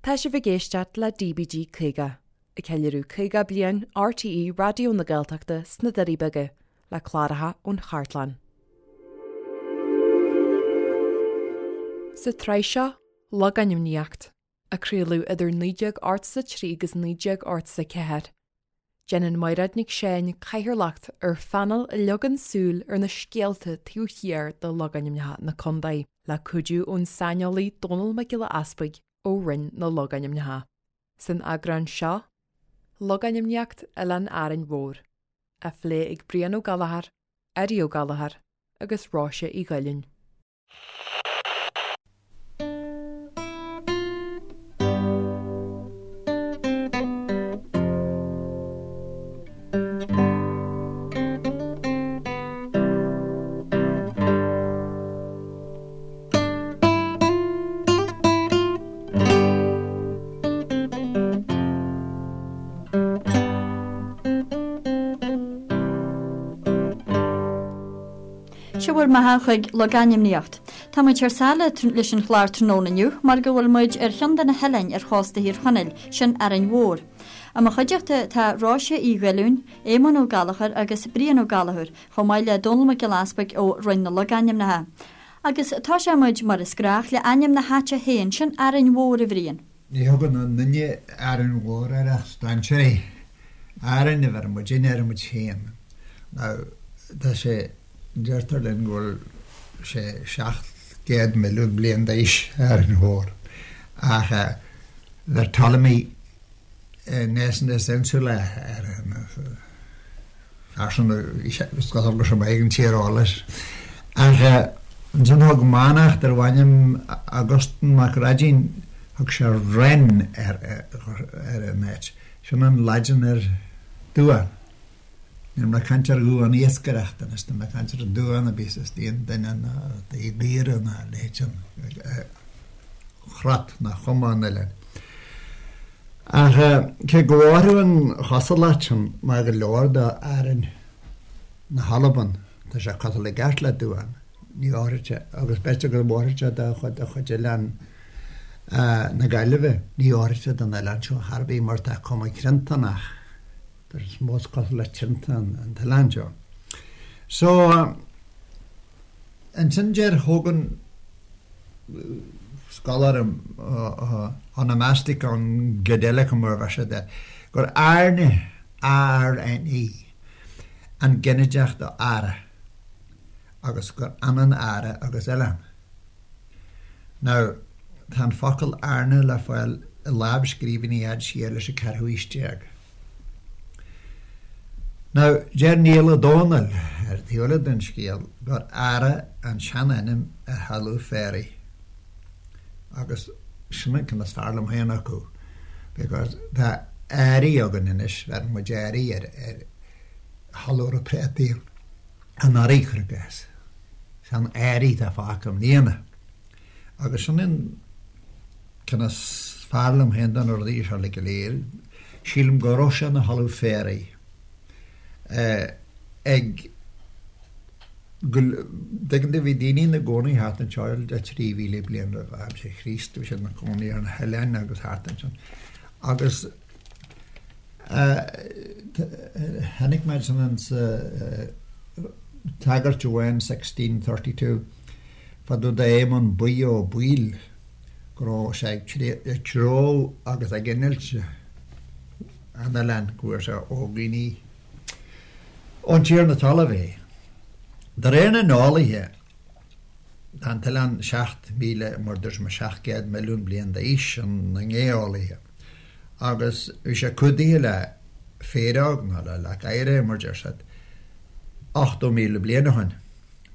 Tá sibh ag éisteacht le DBG 50, ag ceiliúradh 50 bliain RTÉ Raidió na Gaeltachta sna Doirí Beaga, le cláracha ón chartlann. Sa tsraith seo, Logainmníocht, a craoladh idir 1983 agus 1984, Déanann Mairéad Nic Seáin cathaoirleacht ar phainéal a leagann súil ar na scéalta taobh thiar de logainmneacha na contae, le cuidiú ón saineolaí Dónall Mac Giolla Easpaig ó Roinn na Logainmneacha. San eagrán seo, Logainmníocht Oileán Árainn Mhór, á phlé ag Brian Ó Gallchóir, Eddie Ó Gallchóir agus Róise Uí Ghaoláin. Seo bhur mbeatha chuig Logainmníocht. Tá muid thar sáile leis an chlár tráthnóna inniu mar go bhfuil muid ar cheann de na hoileáin ar chósta Thír Chonaill, sin Árainn Mhór. I mo chuideachta tá Róise Uí Ghaoláin, Éamonn Ó Gallchóir agus Brian Ó Gallchóir, chomh maith le Dónall Mac Giolla Easpaig ó Roinn na Logainmneacha. Agus tosóidh muid, mar is gnách, le ainm na háite féin, sin Árainn Mhór, a Bhriain. Ní thugann aon duine Árainn Mhór air ach strainséirí. Árainn a bheireann muidinne ar muid féin. Now, tá sé, deirtear linn go bhfuil sé 700 milliún bliain d'aois, Árainn Mhór. Ach bheir Ptolemy Nessus Insula air. Fear sin is cosúil go raibh sé maith ag an tíreolas. Ach ansin thug manach darbh ainm Augustin Mac Raidín, thug sé Renn ar an áit. Sin an Laidin ar duán. Níl mé ag caint ar dhuán iascaireachta anois, tá mé ag caint ar duán a bhíos istigh i nduine ná i gcaora ná a leithéid sin, crot ná cuma an oileáin. Ach cé go bhfóirfeadh an chosúlacht sin mar go leor d'Árainn na hAlban, tá sé cosúil i gceart le duán, ní fhóirfeadh sé, agus b'fhéidir go bhfóirfeadh sé do chuid de chuid oileán na Gaillimhe, ní fhóirfeadh sé don oileán seo chor ar bith mar tá cuma triantánach, tá sé is mó is cosúil le triantán an t-oileán seo. So, ansin deir Hogan, scoláire Onomasticon Goedelicum mar a bheir siad air, gur Airne, A-R-N-E, an ginideach do Ara agus gur ionann Ara agus oileán. Now, tá an focal Airne le fáil i lámhscríbhinní a fhad siar leis an ceathrú haois déag. Now, deir Niall Ó Dónaill, ar thaobh eile den scéal, gur Ara an seanainm ar thalamh féaraigh. Agus sin an ceann is fearr liom féin acu, because tá Airí againn anois, bheireann muid Airí ar ar thalamh a raibh préataí anuraidh, cuir i gcás. Sean Airí atá fágtha i mbliana. Agus sin an ceann is fearr liom féin de na rudaí seo uilig go léir. Sílim go raibh sé ina thalamh féaraigh ag go dtuigeann tú bhí daoine ina gcónaí thart anseo le 3,000 bliain roimh aimsir Chríost, bhí siad ina gcónaí ar na hoileáin agus thart ansin. Agus chonaic mé ansin sa tagairt amháin 1632 fá dtaobh d'Éamonn Buí Ó Baoill go raibh sé ag treabhadh agus ag innilt an oileáin, go bhfuair sé ó dhaoine ón tiarna talaimh é. De réir na n-eolaithe, tá an t-oileán 7,000, mar dúirt mé, 700 milliún bliain d'aois, sin na geolaithe, agus bhí sé cumhdaithe le féaróg nó le leac oighir, mar deir siad, 80,000 bliain ó shin.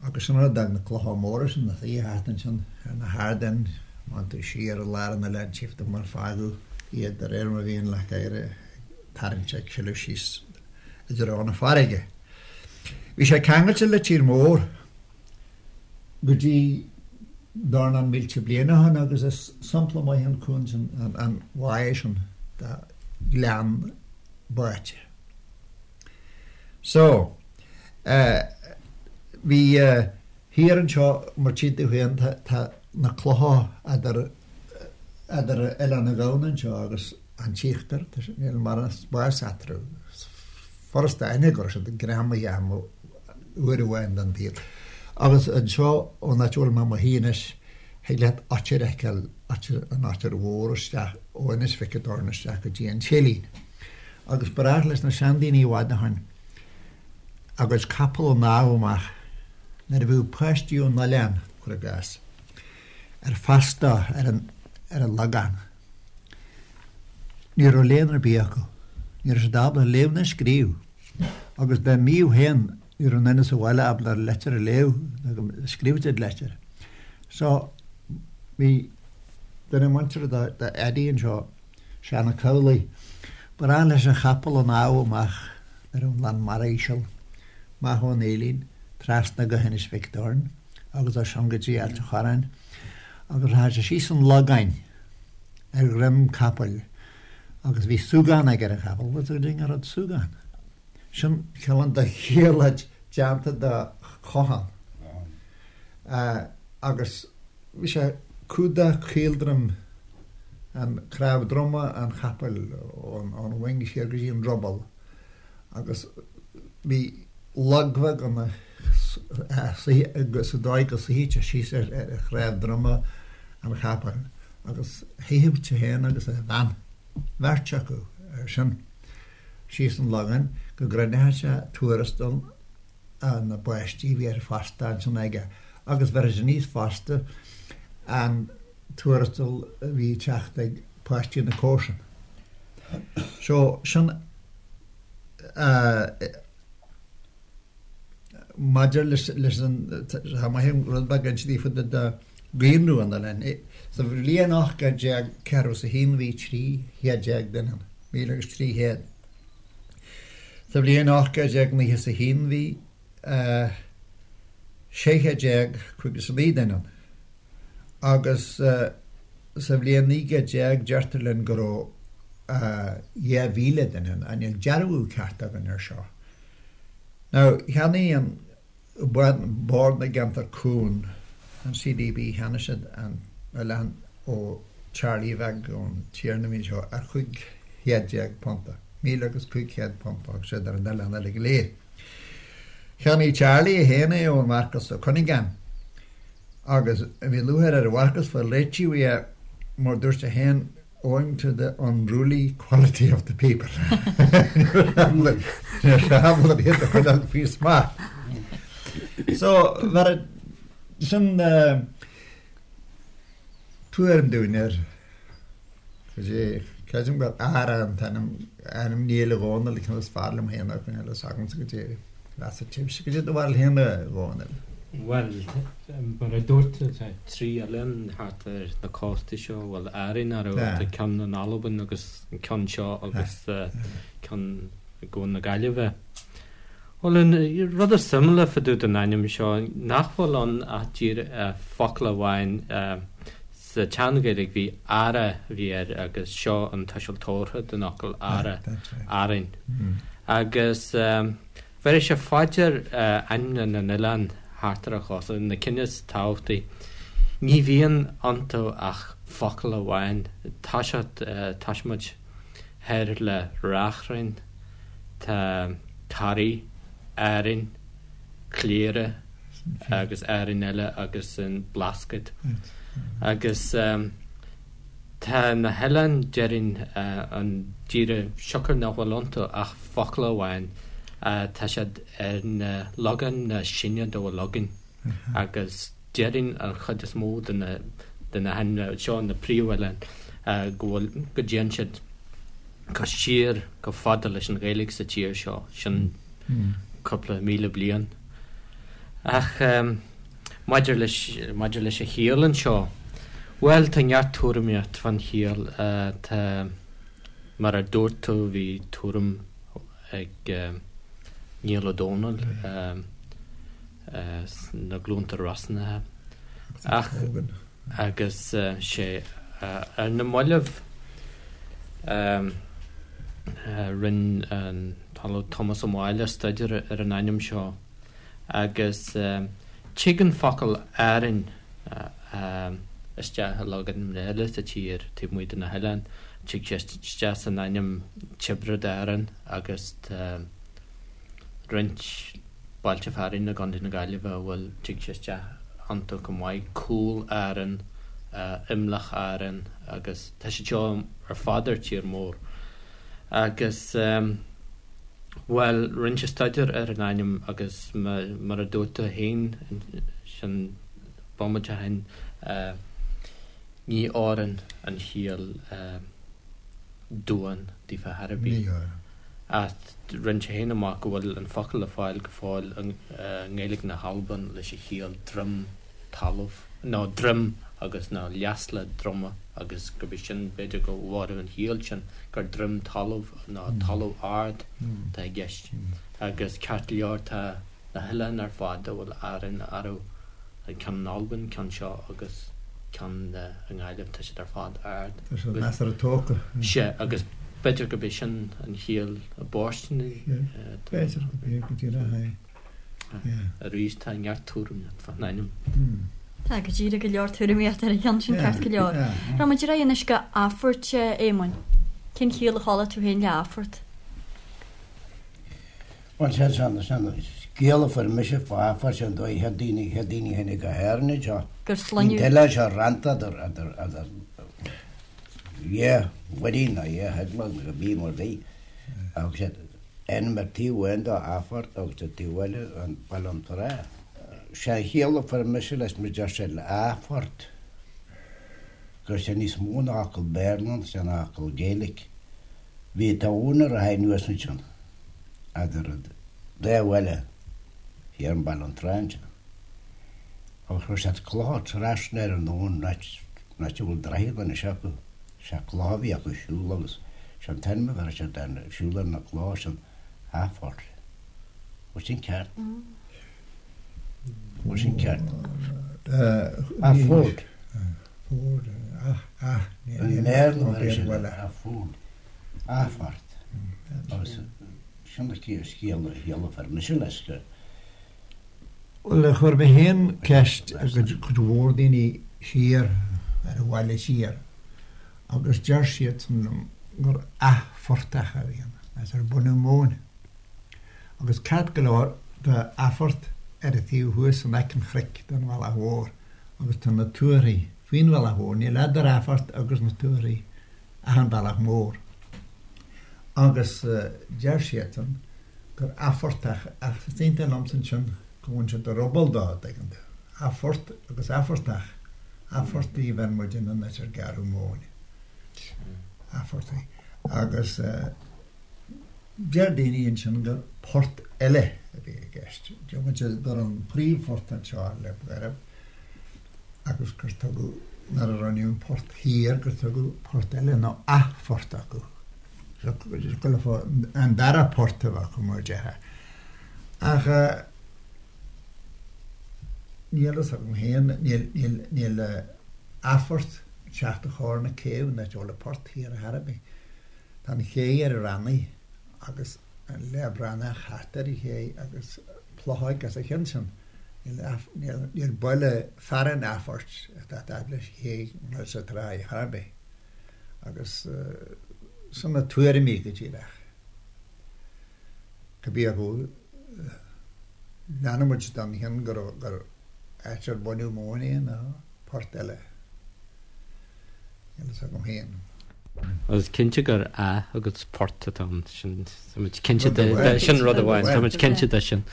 Agus sin rud a d'fhág na clocha móra sin ina suí thart ansin ar na hardáin, má théann tú siar i lár an oileáin tchífidh tú mar fágadh iad de réir mar a bhí an leac oighir ag tarraingt ag sileadh síos i dtreo na farraige. Bhí sé ceangailte le tír mór go dtí dornán mílte bliain ó shin agus is sampla maith an cuan sin, an bháigh sin de ghleann báite. So, eh, bhí, eh, thiar anseo, mar tchíonn tú féin, tá, tá na clocha eadar, eh, Idir Oileán na Gamhna anseo agus an tÍochtar, níl mórán spáis eatarthu. Is furasta a aithne go raibh siad greamaithe amuigh uair amháin den tsaol. Agus anseo, ón áit a bhfuil mé i mo shuí anois, thig leat oitir a fheiceáil, an Oitir Mhór isteach ó Inis Mhic an Doirn isteach go dtí an Céilín. Agus ba ghnách leis na seandaoine i bhfad ó shin a gcuid capall a shnámh amach nuair a bhíodh páistí ón oileán, cuir i gcás. ar fostú ar an ar an Logán. Ní raibh léann ar bith acu. Ní raibh siad ábalta léamh ná scríobh. Agus dá mbíodh féin, ní raibh aon duine sa bhaile ábalta leitir a léamh ná go scríobhadh siad leitir. So, bhí duine muinteartha do Eddie anseo, Seán Ó Cabhlaigh, ba ghnách leis a chapall a shnámh amach nuair a bhí an lán mara íseal, amach ón Fhaoilín, trasna go hInis Mhic Doirn. agus as sin go dtí Ailt an Chorráin agus rachadh sé síos an Logán ar dhroim capaill agus bhí súgán aige ar an chapall. Bhfuil a fhios agat an rud súgán? Sin cineál de ghiuirléid déanta de chochán agus bhí sé ag cumhdach caoldroim an cnámh droma an chapaill ón mhoing siar go dtí an druball agus bhí log bheag ann sa dóigh go suífeadh sé síos ar chnámh droma an chapaill agus shuífeadh sé féin agus a bhean, beirt acu, air sin, síos an Logán go gcruinneodh sé tuarastal na bpáistí a bhí ar fostú ansin aige agus bheireadh sé aníos fosta an tuarastal a bhí ag teacht ag páistí na comharsan. So, sin. Maidir leis an, tá maith an rud beag inste daofa de dhaonra an oileáin. Sa bhliain 1841 bhí 13 chéad duine ann, míle agus 300. Sa bhliain 1891 bhí 1659 duine ann. Agus sa bhliain 1900 deirtear linn go raibh 2,000 duine ann, ach níl dearbhú ceart againn air seo. Now, cheannaigh an Bord na gCeantar Cúng, an CDB, cheannaigh siad an oileán ó Charlie Bheag, ón tiarna a bhí anseo, ar £15 punta, míle agus 500 punt a thug siad ar an oileán uilig go léir. Cheannaigh Charlie é féin é ón Mharcas Ó Cuinneagáin. Agus bhí lúcháir ar Mharcas fáil réitithe uaidh mar dúirt sé féin owing to the unruly quality of the people. Ní raibh sé ábalta iad a choinneáil faoi smacht. So, bheir sin tuairim dúinn ar Creidim gur Ara an t-ainm, ainm Néill Dhónaill an ceann is fearr liom féin a choinneáil fhios agamsa goidé mheas sibhse goidé do bharúil féin a Dhónaill. Bhuel, mar a dúirt tú, tá trí oileán thart ar na cóstaí seo, bhuel, Árainn, ar tá ceann in Albain agus an ceann seo agus ceann i gCuan na Gaillimhe. Bhuel, an rud is suimiúla fá dtaobh den ainm seo, nach bhfuil ann ach díreach focal amháin, Sa tSean-Ghaeilge bhí Ara a bhí air agus seo an tuiseal tabhartha den fhocal Ara, Árainn. Agus bhéarfaidh sé fá dear ainmneacha na n-oileán thart ar an chósta, na cinn is tábhachtaí, ní bhíonn iontu ach focal amháin. Toiseacht, toisímid thoir le Reachrainn, tá Toraigh, Árainn, Cléire agus Árainn eile agus an Blascaod. Agus tá na hoileáin, déarfainn, an díreach siocair nach bhfuil iontu ach focal amháin, tá siad ar na logainmneacha is sine dá bhfuil againn. Agus déarfainn an chuid is mó de na de na hainmneacha seo, na príomhoileáin, go bhfuil, go dtéann siad go siar go fada leis an Ghaeilge sa tír seo, sin cúpla míle bliain. Ach maidir leis, maidir leis an chiall anseo, bhuel, tá neart tuairimíocht fán chiall. Tá, mar a dúirt tú, bhí tuairim ag Niall Ó Dónaill sna Glúnta Rosnacha. Ach, agus sé ar na mallaibh rinne an tOllamh Tomás Ó Máille staidéar ar an ainm seo agus tig an focal Árainn. isteach i logainmneacha eile sa tír taobh amuigh de na hoileáin. Tig sé isteach san ainm Tiobraid Árann agus tá roinnt bailte fearainn i gContae na Gaillimhe a bhfuil, tig sé isteach iontu chomh maith, Cúil Árann, Imleach Árann agus tá siad seo ar fad ar tír mór. Agus, bhuel, rinne sé staidéar ar an ainm agus mar a dúirt tú féin sin bomaite ó shin, ní oireann an chiall duan daofa chor ar bith. Ach rinne sé féin amach go bhfuil an focal le fáil go fóill i nGaeilge na hAlban leis an chiall droim talamh, nó droim agus nó leasla droma agus gurb é sin, b'fhéidir go bhfóireann an chiall sin gur droim talamh nó talamh ard atá i gceist. Agus ceart go leor tá na hoileáin ar fad a bhfuil Árainn orthu, an ceann in Albain, ceann seo agus ceann i nGaillimh, tá siad ar fad ard. Tá siad measartha tógtha. Sea, agus b'fhéidir gurb é sin an chiall a b'fhóirsteanaí. B'fhéidir gurb é go díreach é. Arís, tá neart tuairimíocht fán ainm. Tá go díreach go leor tuairimíocht ar an cheann sin, ceart go leor. Rachaidh muid ar aghaidh anois go Athphort, a Éamoinn. Cén chiall a chuala tú féin le Athphort? Bhuel, sé sin, sin scéal a fuair mise fá Athphort, sin dóigh chéad daoine, chéad daoine a tháinig go hÉirinn anseo. Gur sloinneadh. Bhí an t-oileán seo rannta idir, idir, idir dhá mhuirín nó dhá theaghlach nó cibé mar bhí. Agus sé ainm ar taobh amháin dó Athphort agus ar taobh eile an Baile an Trá. Sé an chiall a fuair mise leis mar deir sé le Athphort go raibh sé níos mó ná fhocal Béarla ann, sé ná fhocal Gaeilic. Bhí abhainn ag rith anuas ansin eadar an dá bhaile thiar i mBaile an Trá ansin. Agus chuir siad clocha trasna ar an abhainn an áit a bhfuil droichead anois acu. Sé clocha a bhí acu siúl agus sé an t-ainm a bheir siad ar siúl ar na clocha sin Athphort. Bhfuil sin ceart? Bhfuil sin ceart? Athford. Ford, ah, ah, I mBéarla bheir siad ar Athford. Athphort. Agus sin an scéal a chiall a fuair mise leis go. Bhuel, chuir mé féin ceist ar cuid mhór daoine siar ar an bhaile siar agus deir siadsan liom gur athphortach a bhí ann, as ar baineadh móin. Agus ceart go leor tá Athphort ar an taobh thuas in aice an chnoic den Bhealach Mhór agus tá na tuarthaí faoin Bhealach Mhór, níl eadar Athphort agus na tuarthaí ach an Bealach Mór. Agus deir siadsan gur athphortach, ach is iontach liomsa ansin go bhfaigheann siad ruball dó, an dtuigeann tú. Athphort agus athphortach, athphortaí a bheir muid in an áit ar gearradh móin. Athphortaí. Agus deir daoine ansin gur port eile a bhí i gceist. Deir muid gur an príomhphort anseo le Gairb agus gur tugadh, nuair a rinneadh an port thiar, gur tugadh port eile nó athphort acu. An dara port a bheadh acu mar a déarfá. Ach níl fhios agam féin, níl athphort ag teacht a chóir na céibh ná a bhfuil an port thiar ar chor ar bith. Tá an ché ar an Rannaigh agus an Leath Bhranach thart ar an ché agus Plochóig os a chionn sin. Níl baile fearainn Athphoirt atá fad leis an ché nó sa tráigh ar chor ar bith. Agus sin na tuairimí go díreach. Cibé acu, leanfaidh muid den chionn gur áit ar baineadh móin é nó port eile. Níl fhios agam féin. Is cinnte gur ath agus port atá ann, sin, tá muid cinnte de, sin rud amháin, tá muid cinnte de sin.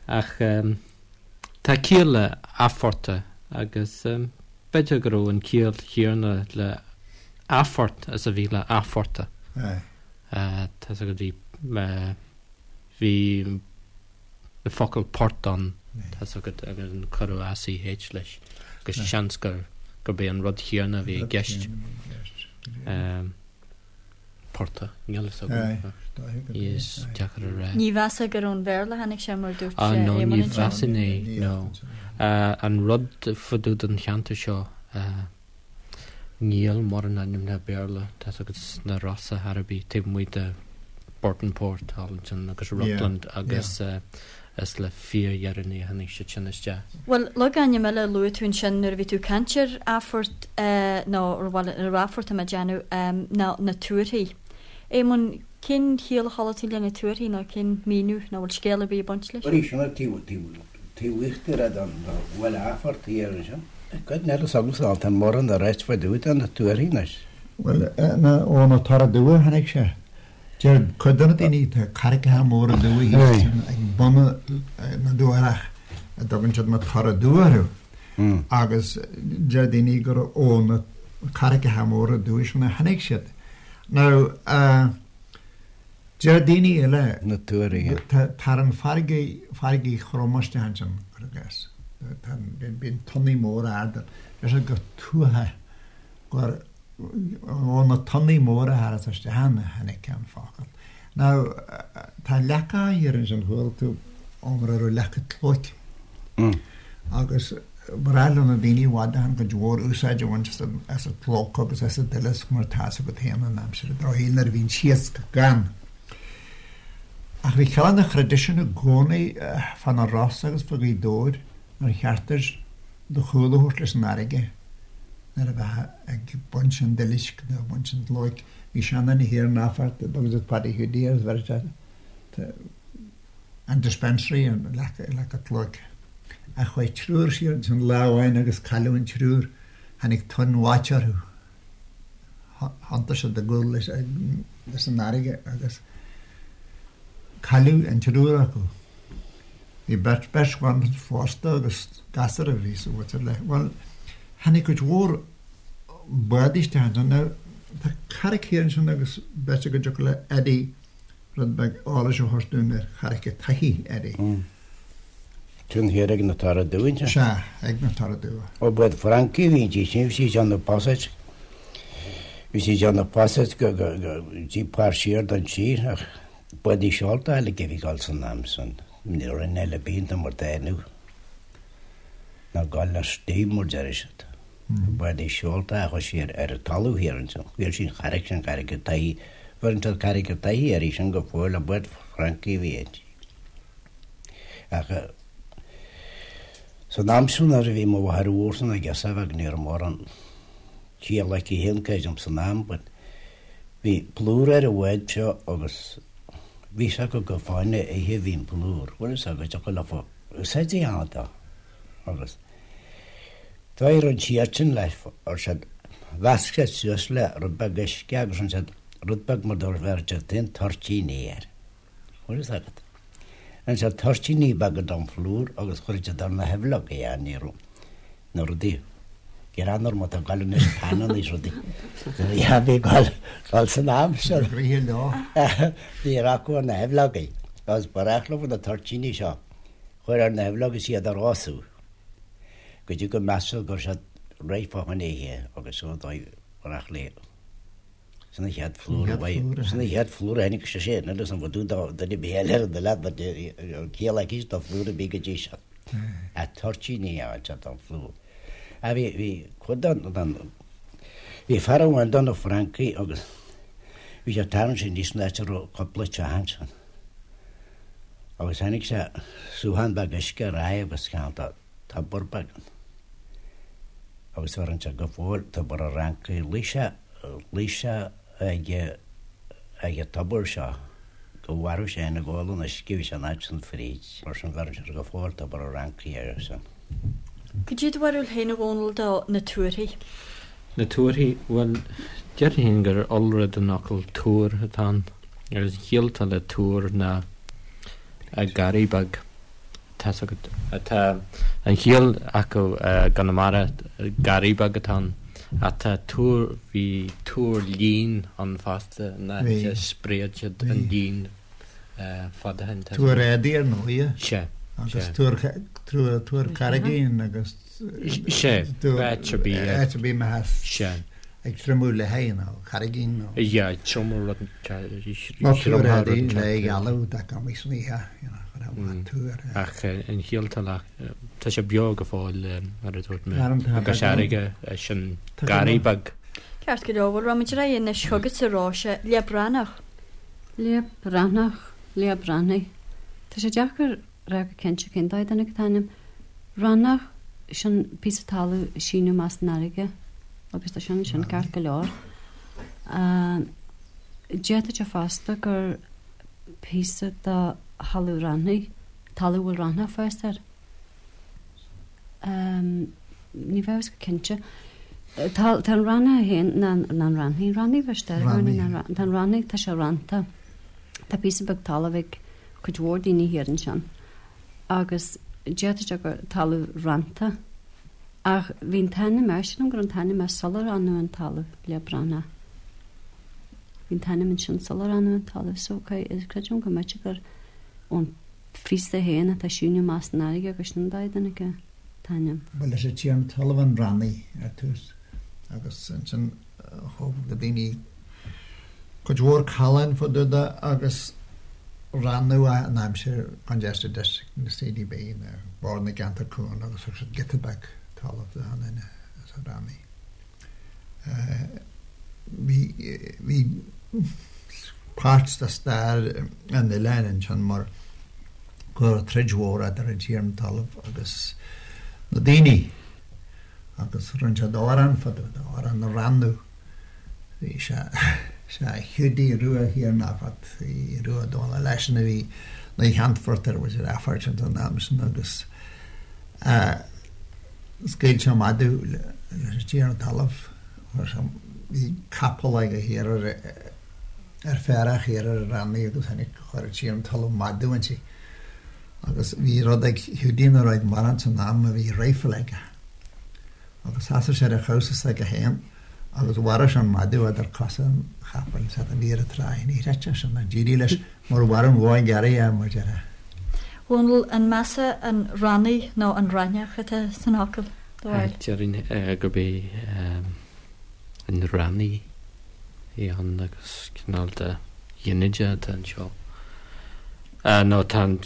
Ach tá ciall le athphortach agus b'fhéidir go raibh an ciall chéanna le athphort is a bhí le athphortach. Tá fhios agat bhí, bhí an focal port ann, tá fhios agat, agus cuireadh ACH leis agus seans gur, gurb é an rud chéanna a bhí i gceist. Portach, níl fhios agam. Is deacair a rá. Ní mheasfá gur ón Bhéarla a tháinig sé mar dúirt Ah no, Éamonn ní ansin. mheasfainn é, no. An rud fá dtaobh den cheantar seo, Níl mórán ainmneacha Béarla, tá fhios agat, sna Rosa ar bith, taobh amuigh de Burtonport thall ansin agus Rutland agus. Is le fíordheireanaí a tháinig siad sin isteach. Bhuel, logainm eile a luaigh tú ansin nuair a bhí tú ag caint ar Athphort, nó bhuel, ar Athphort tá mé ag déanamh, ná na tuarthaí. Éamonn, cén chiall a chuala tú le na tuarthaí nó cén míniú nó bhfuil scéal ar bith ag baint leis? Arís, an taobh, taobh, taobh íochtar den bhaile Athphort thiar ansin. Cuid eile s'agamsa tá mórán a ráit fá dtaobh de na tuarthaí anois. Bhuel, ó na Tora Dubha a tháinig sé. Deir cuid de na daoine, tá carraigeacha móra dubha thíos ag bun na dTuarach a dtugann siad na Tora Dubha orthu agus deir daoine gur ó na carraigeacha móra dubha sin a tháinig siad. Now, deir daoine eile, Na tuarthaí. tá an farraige, farraige throm isteach ansin, cuir i gcás. Bíonn tonnaí móra arda. Deir siad gur tuatha, gur Ó na tonnaí móra a tharas isteach ann a tháinig an focal. Now, tá leaca thiar ansin, chuala tú iomrá ar leaca tlóic. Agus ba ghnách le na daoine i bhfad ó shin cuid mhór úsáid a bhaint as an tlóc agus as an duileasc mar tá 'fhios agat féin in aimsir an drochshaoil nuair a bhíonn iasc gann. Ach bhí cineál de thraidisiún i gcónaí fá na Rosa agus fá Ghaoth Dobhair nár cheart duit do chúl a thabhairt leis an fharraige nuair a bheifeá ag baint an duilisc nó ag baint an tlóic. Bhí seanduine thiar in Athphort a dtugann siad Paddy Hiúdaí air, bheireadh sé an dispensary, an leaca tlóic. Ach chuaigh triúr siar ansin lá amháin agus cailleadh an triúr. Tháinig tonn bháite orthu. Thiontaigh siad a gcúl leis an fharraige agus cailleadh an triúr acu. Bhí beirt, beirt bhan phósta agus gasúr a bhí sa mhuintir le. Bhuel, tháinig cuid mhór bádaí isteach ansin. Now, tá carraig thiar ansin agus b'fhéidir go dtiocfadh le Eddie rud beag eolais a thabhairt dúinn ar Charraig an tSathaigh, Eddie. Sin thiar ag na Tora Dubha ansin? Sea, ag na Tora Dubha. Ó bád Francaigh a bhí inti sin, bhí sí ag déanamh passage, bhí sí ag déanamh passage go, go, go dtí páirt siar den tír ach Bádaí seolta uilig a bhí ag dul san am san, ní raibh aon eile bíonta mar tá inniu, ná gabháil le steam mar deir siad. Bádaí seolta a chuaigh siar ar an talamh thiar ansin, bhí sin charraig sin Carraig an tSathaigh, bheireann siad Carraig an tSathaigh uirthi sin go fóill, ach bád Francaigh a bhí inti. Ach san am sin nuair a bhí mo mháthair mhór san ag girseach bheag ní raibh mórán ciall aici féin creidim san am but Bhí plúr ar an bhád seo agus bhí fhios acu gur fá choinne ithe a bhí an plúr. Bhfuil fhios agat, thiocfadh leofa úsáid a dhéanamh dó. Agus d'éirigh an tsíort sin leis, ar siad, mheasc siad suas le rud beag uisce agus rinne siad rud beag mar dá bheireadh siad féin toirtíní air. Bhfuil fhios agat. Rinne siad toirtíní beaga den phlúr agus chuir siad ar na haibhleoga é, ní raibh na rudaí greannmhar mar atá ag dul anois pananna is rudaí. Bhí ag dul san am sin. Bhí leo. Bhí acu ar na haibhleogaí agus ba ghnách leo na toirtíní seo a chur ar na haibhleogaí is iad a rosú go dtí go measadh go raibh siad réidh fá choinne ithe agus so dóigh ba ghnách leo. Sin an chéad phlúr a bhain. Sin an chéad phlúr a tháinig sé sin agus an bhfadú do duine ar bith eile ar an oileán but an ciall aici do phlúr a bhí go dtí seo. A toirtíní a fháil don phlúr. A bhí bhí cuid den den bhí fear amháin do na Francaigh agus bhí sé ag tarraingt aníos san áit a raibh cúpla teach ansin. Agus tháinig sé suthán beag uisce ar aghaidh agus ceann de tobar beag ann. Agus bheireann sé go fóill tobar an Fhrancaigh. Luigh sé Luigh sé ag ag an tobar seo go mharbh sé féin ag ól an uisce bhí sé an áit san fríd. Mar sin bheireann siad go fóill tobar an Fhrancaigh air sin. Cad é do bharúil féin a Dhónaill do na tuarthaí? Na tuarthaí, bhuel, déarfainn féin gur iolra den fhocal tuar atá ann. Agus an chiall atá le tuar ná garraí beag. Tá's agat. Tá an chiall acu i gConamara, garraí beag atá ann. Ach tá tuar, bhí tuar lín ann fosta, an áit a spréad siad an lín fad ó shin. Tuar éadaí ar ndóighe. Sea. Agus tuar, tuar carraigín agus. Sea, áit ar bith. Áit ar bith a mbeifeá. Sea. Ag triomú le haghaidh nó carraigín nó. Yeah, triomú rud. Nó tuar éadaí le ghealú dá gcumaí san oíche, you know, chuir amach tuar. Ach an chiall atá le, tá sé beo go fóill, mar a dúirt mé, i gCois Fharraige, sin garraí beag. Ceart go leor, bhuel, rachaimid ar aghaidh anois chugatsa, Róise, Leap Breathnach. Leap Breathnach, Leap Breathnaigh. Tá sé deacair. rá go cinnte cén dóigh a dtáinig an t-ainm. Rannach, sin píosa talamh ag síneadh amach san fharraige agus tá sin ansin ceart go leor. D'fhéadfadh sé fosta gur píosa de thalamh raithnigh, talamh a bhfuil raithneach ag fás air. Ní bheadh a fhios go cinnte. Tá tá an raithneach féin ná ná an raithní, raithní bheith Tá an raithní, tá sé rannta. Tá píosa beag talaimh ag cuid mhór daoine thiar ansin agus d'fhéadfadh sé gur talamh rannta. Ach bhí an t-ainm air, sílim go raibh an t-ainm air sular rannadh an talamh le Breathnach. Bhí an t-ainm ansin sular rannadh an talamh so creidim go mb'fhéidir gur ón phíosa féin atá ag síneadh amach san fharraige gur sin an dóigh a dtáinig an t-ainm. Ba leis an tiarna talaimh an Rannaigh ar tús agus ansin thóg na daoine cuid mhór callán fá dtaobh de agus rannadh é in aimsir Congested District na CDB, nó Bord na gCeantar Cúng agus thug siad giota beag talaimh do achan duine as an Rannaigh. Bhí bhí páirt de stair an oileáin ansin mar go raibh troid mhór idir an tiarna talaimh agus na daoine agus rinne siad amhrán fá dtaobh de, amhrán na Rannadh. Bhí sé sé Hiúdaí Rua Thiar Nafat, Rua Dónall leisean a bhí ina cheannfort ar mhuintir Aifeirt an am sin agus scaoil sé madadh leis an tiarna talaimh. Chuir sé, bhí capall aige thiar ar ar féarach thiar ar an Rannaigh agus tháinig, chuir an tiarna talaimh madadh inti. Agus bhí rud ag Hiúdaí nach raibh ag mórán san am a bhí rifle aige. Agus sheasaigh sé ar a chamhsa s'aige féin agus mharaigh sé an madadh idir cosa an chapaill is an bhí ar an tráigh. Ní chreidfeá sin ach d'éirigh leis mar mharaigh an bhó ghearraithe é mar déarfá. Dhónaill, an measa an Rannaigh nó an Raithneach atá san fhocal, do bharúil? Déarfainn gurb é an Rannaigh a bhí ann agus cineál de ghinideach atá anseo. Nó tá an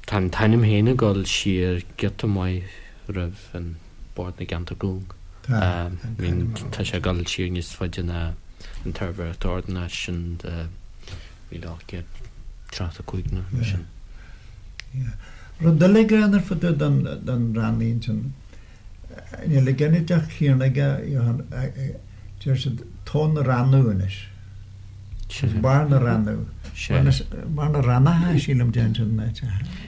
tá an t-ainm féin ag dul siar giota maith roimh an Bord na gCeantar Cúng. Tá, tá an t-ainm ann. Tá sé ag dul siar níos faide ná an tSuirbhéireacht Ordanáis sin de 1835 nó mar sin. Yeah. Rud eile greannmhar fá dtaobh den, den Rannaigh ansin, níl an ginideach céanna aige, Johann, deir siad tóin na Rannadh anois. Sea. Barr na Rannadh. Sea. Barr na Rannacha, sílim, deireann siad in áit.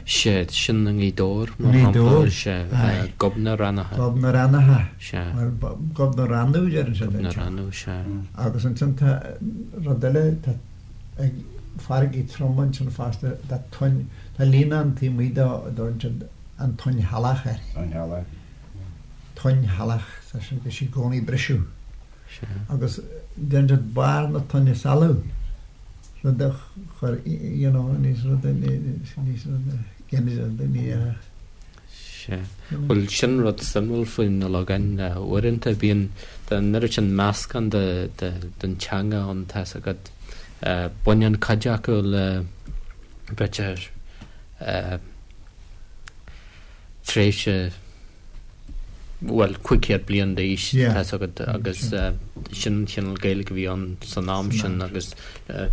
Sea, sin i nGaoth Dobhair, mar I nGaoth shampla. Dobhair, Sea, aye. Gob na Rannacha. Gob na Rannacha. Sea. Bhuel, Gob na Rannadh, deireann siad Gob na anseo. Rannadh, sea. Agus ansin tá rud eile, tá ag farraigí trom ansin fosta, tá toinn, tá líonán taobh amuigh dó a dtugann siad an toinn shalach air. Toinn shalach. Toinn shalach, tá sé, bhí sí i gcónaí ag briseadh. Sea. Agus deireann siad barr na toinne salaí, rud a chuir, you know, níos rud, níos rud, ginideach, ní dhéarfadh. Sea. Bhuel, sin rud suimiúil faoi na logainmneacha. Uaireanta bíonn an oiread sin meascán de, de, den teanga ann, tá's agat. Baineann cuid acu le, b'fhéidir, tréimhse, bhuel, 500 bliain d'aois, tá's agat, agus sin an cineál Gaeilge a bhí ann san am sin agus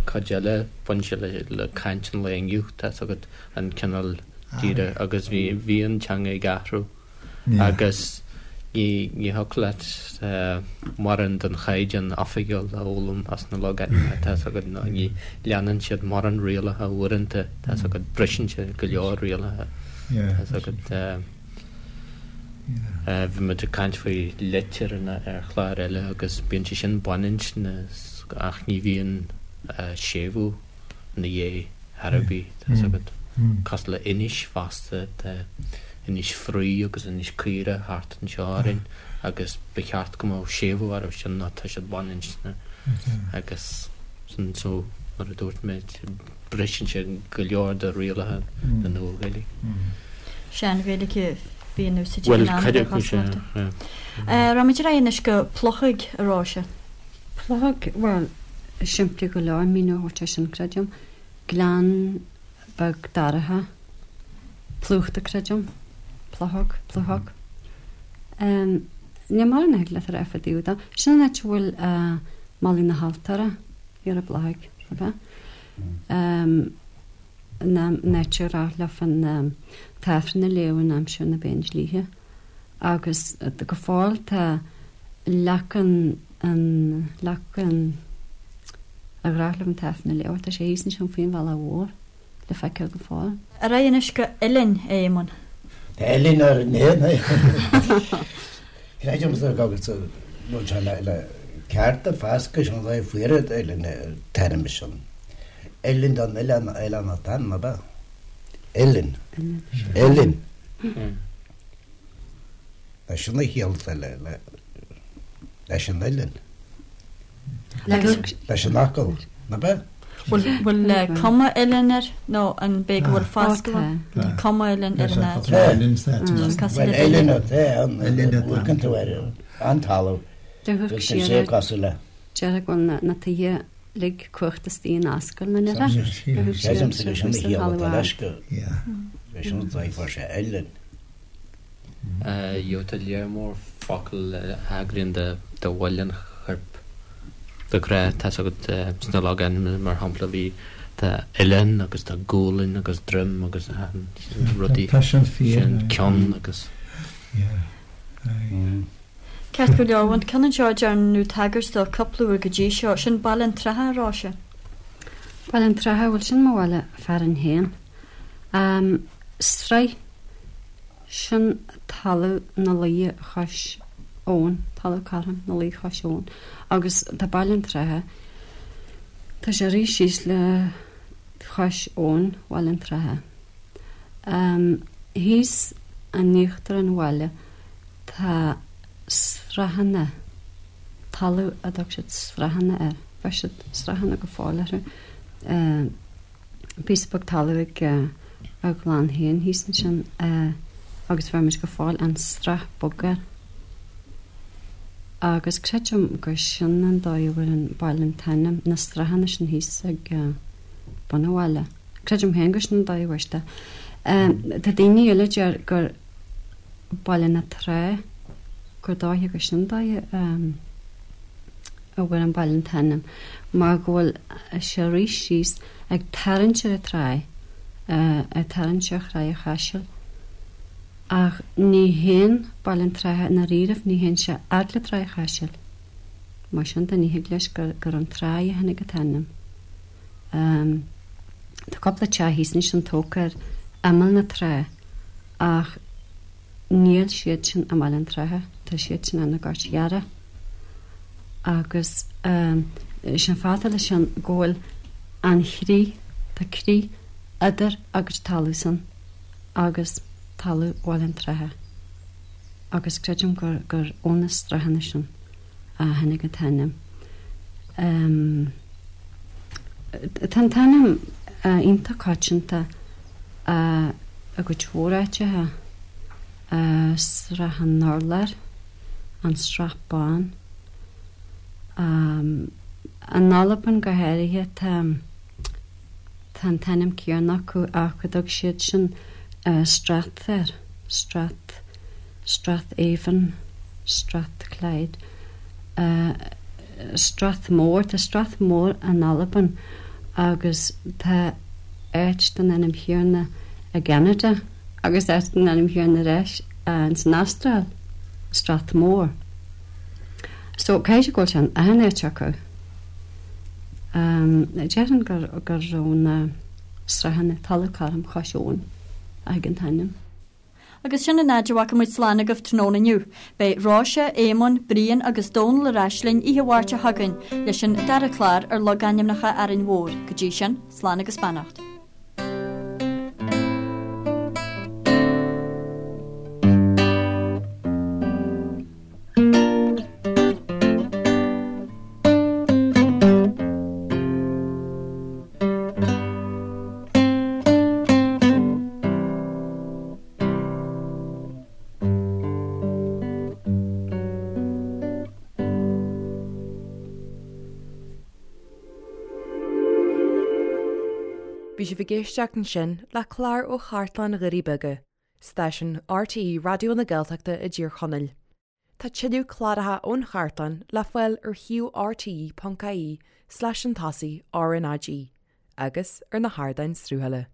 cuid eile, baineann sé le caint an lae inniu, tá's agat, an cineál díreach agus bhí, bhí an teanga ag athrú agus ní, ní thiocfadh leat mórán den chaighdeán oifigiúil a fhoghlaim as na logainmneacha, tá's agat, nó ní leanann siad mórán rialacha uaireanta, tá's agat, briseann siad go leor rialacha, tá's agat. Bhí muid ag caint faoi litreanna ar chlár eile agus bíonn sé sin baininscne ach ní bhíonn séimhiú ina dhiaidh ar bith, tá's agat. Cosúil le Inis fosta, tá Inis Fraoigh agus Inis Caora thart anseo orainn agus ba cheart go mbeadh séimhiú orthu sin nó tá siad baininscne agus sin so mar a dúirt mé Briseann sé go leor de rialacha na Nua-Ghaeilge. Sean-Ghaeilge a bhí in úsáid ag Bhuel, an am cuid ar acu sea, chosúlacht. yeah. Raghaimid ar aghaidh anois go Pluchóg, a Róise. Pluchóg, bhuel, simplí go leor míniú a thabhairt air sin, creidim. Gleann beag dorcha, plúchta, creidim. Pluchóg, pluchóg. Níl mórán a thig leat a rá fá dtaobh de. Sin an áit a bhfuil Malaidh na hAltóra. Thiar i bPluchóig, ab ea? an áit ar ghnách leofa an tAifreann a léamh in aimsir na bPéindlíthe agus go fóill tá leac an, an, leac an, ar ghnách leo an tAifreann a léamh, tá sé thíos ansin faoin bhealach mhór le feiceáil go fóill. Ar aghaidh anois go Uillinn, a Éamoinn. Tá Uillinn ar an éan é. Creidimse go bhfuil sé le ceart ar fascadh sin an fuaire Uillinn an t-ainm sin. Uillinn don oileán, oileán an t-ainm, ab ea? Uillinn. Uillinn. Sin a chiall atá leis an uillinn. Leis an fhocal, ab ea? Bhfuil cuma uillinn air nó an b'é go bhfuil fascadh ann? Tá cuma uillinn ar an áit. Bhuel, uillinn atá ann, amharcann tú ar an talamh, bhfuil sé cosúil le. Déarfá go bhfuil na tithe uilig cuachta istigh in ascaill na nithe. Creidimse gur sin a chiall atá leis go sin an dóigh a fuair sé uillinn. Tá lear mór focal a thagraíonn do bhaill an choirp de ghnáth, tá's agat, sna logainmneacha, mar shampla, bhí, tá oileán agus tá gualainn agus droim agus achan rudaí Tá sin fíor. sin, ceann agus. Yeah. Aye. Ceart go leor, an ceann anseo a ndearnadh tagairt dó cúpla uair go dtí seo, sin Baile an tSratha, a Róise. Baile an tSratha, bhuel sin mo bhaile fearainn féin. Sraith, sin talamh na laoithe chois abhann, talamh cothrom na laoithe chois abhann. Agus tá Baile an tSratha, tá sé ag rith síos le chois abhann Bhaile an tSratha. Thíos in íochtar an bhaile tá srathanna, talamh a dtug siad srathanna air, bheir siad srathanna go fóill orthu. Píosa beag talaimh ag ár gclann féin thíos ansin agus bheir muid go fóill an Srath Bog air. Agus creidim gur sin an dóigh a bhfuair an baile an t-ainm, na srathanna sin thíos ag bun an bhaile. Creidim féin gur sin an dóigh a bhfuair siad é. Tá daoine eile a deir gur Baile na Trá, gur dóiche gur sin an dóigh a. a bhfuair an baile an t-ainm mar go bhfuil sé ag rith síos ag tarraingt ar an tráigh, ag tarraingt ar Thráigh an Chaisil. Ach ní théann Baile an tSratha i ndáiríribh, ní théann sé fhad le Tráigh an Chaisil. Mar sin de ní thig leis gur gur ón tráigh a tháinig an t-ainm. Tá cúpla teach thíos ansin tógtha ar imeall na trá ach Níl siad sin i mBaile an tSratha, tá siad sin ar na Goirt Ghearra. Agus is é an fáth atá leis sin go bhfuil an chrith, tá crith idir a gcuid talamh-san agus talamh Bhaile an tSratha. Agus creidim gur, gur ó na srathanna sin a tháinig an t-ainm. Tá an t-ainm iontach coitianta i gcuid mhór áiteacha, Srath an Urláir, an Srath Bán. In Albain go háirithe tá tá an t-ainm céanna acu ach go dtug siad sin Strath air, Strath. Strathavon, Strathclyde, Strathmore, tá Strathmore in Albain agus tá áit den ainm chéanna i gCeanada agus áit den ainm chéanna ar ais ins an Astráil, Strathmore. So caithfidh sé go bhfuil sé in achan áit acu. Déarfainn gur gur ó na srathanna talamh cothrom chois abhann a thig an t-ainm. Agus sin an fhaid a bhfágfaidh muid slán agaibh tráthnóna inniu. Beidh Róise, Éamonn, Brian agus Dónal ar ais linn oíche Mháirt seo chugainn leis an dara clár ar logainmneacha Árainn Mhór. Go dtí sin, slán agus beannacht. Bhí sibh ag éisteacht ansin le clár ó Chartlann Dhoirí Beaga, stáisiún RTÉ Raidió na Gaeltachta i dTír Chonaill. Tá tuilleadh cláracha ón chartlann le fáil ar shuíomh rte.ie slash an tosaigh RnaG agus ar na hardáin sruthála.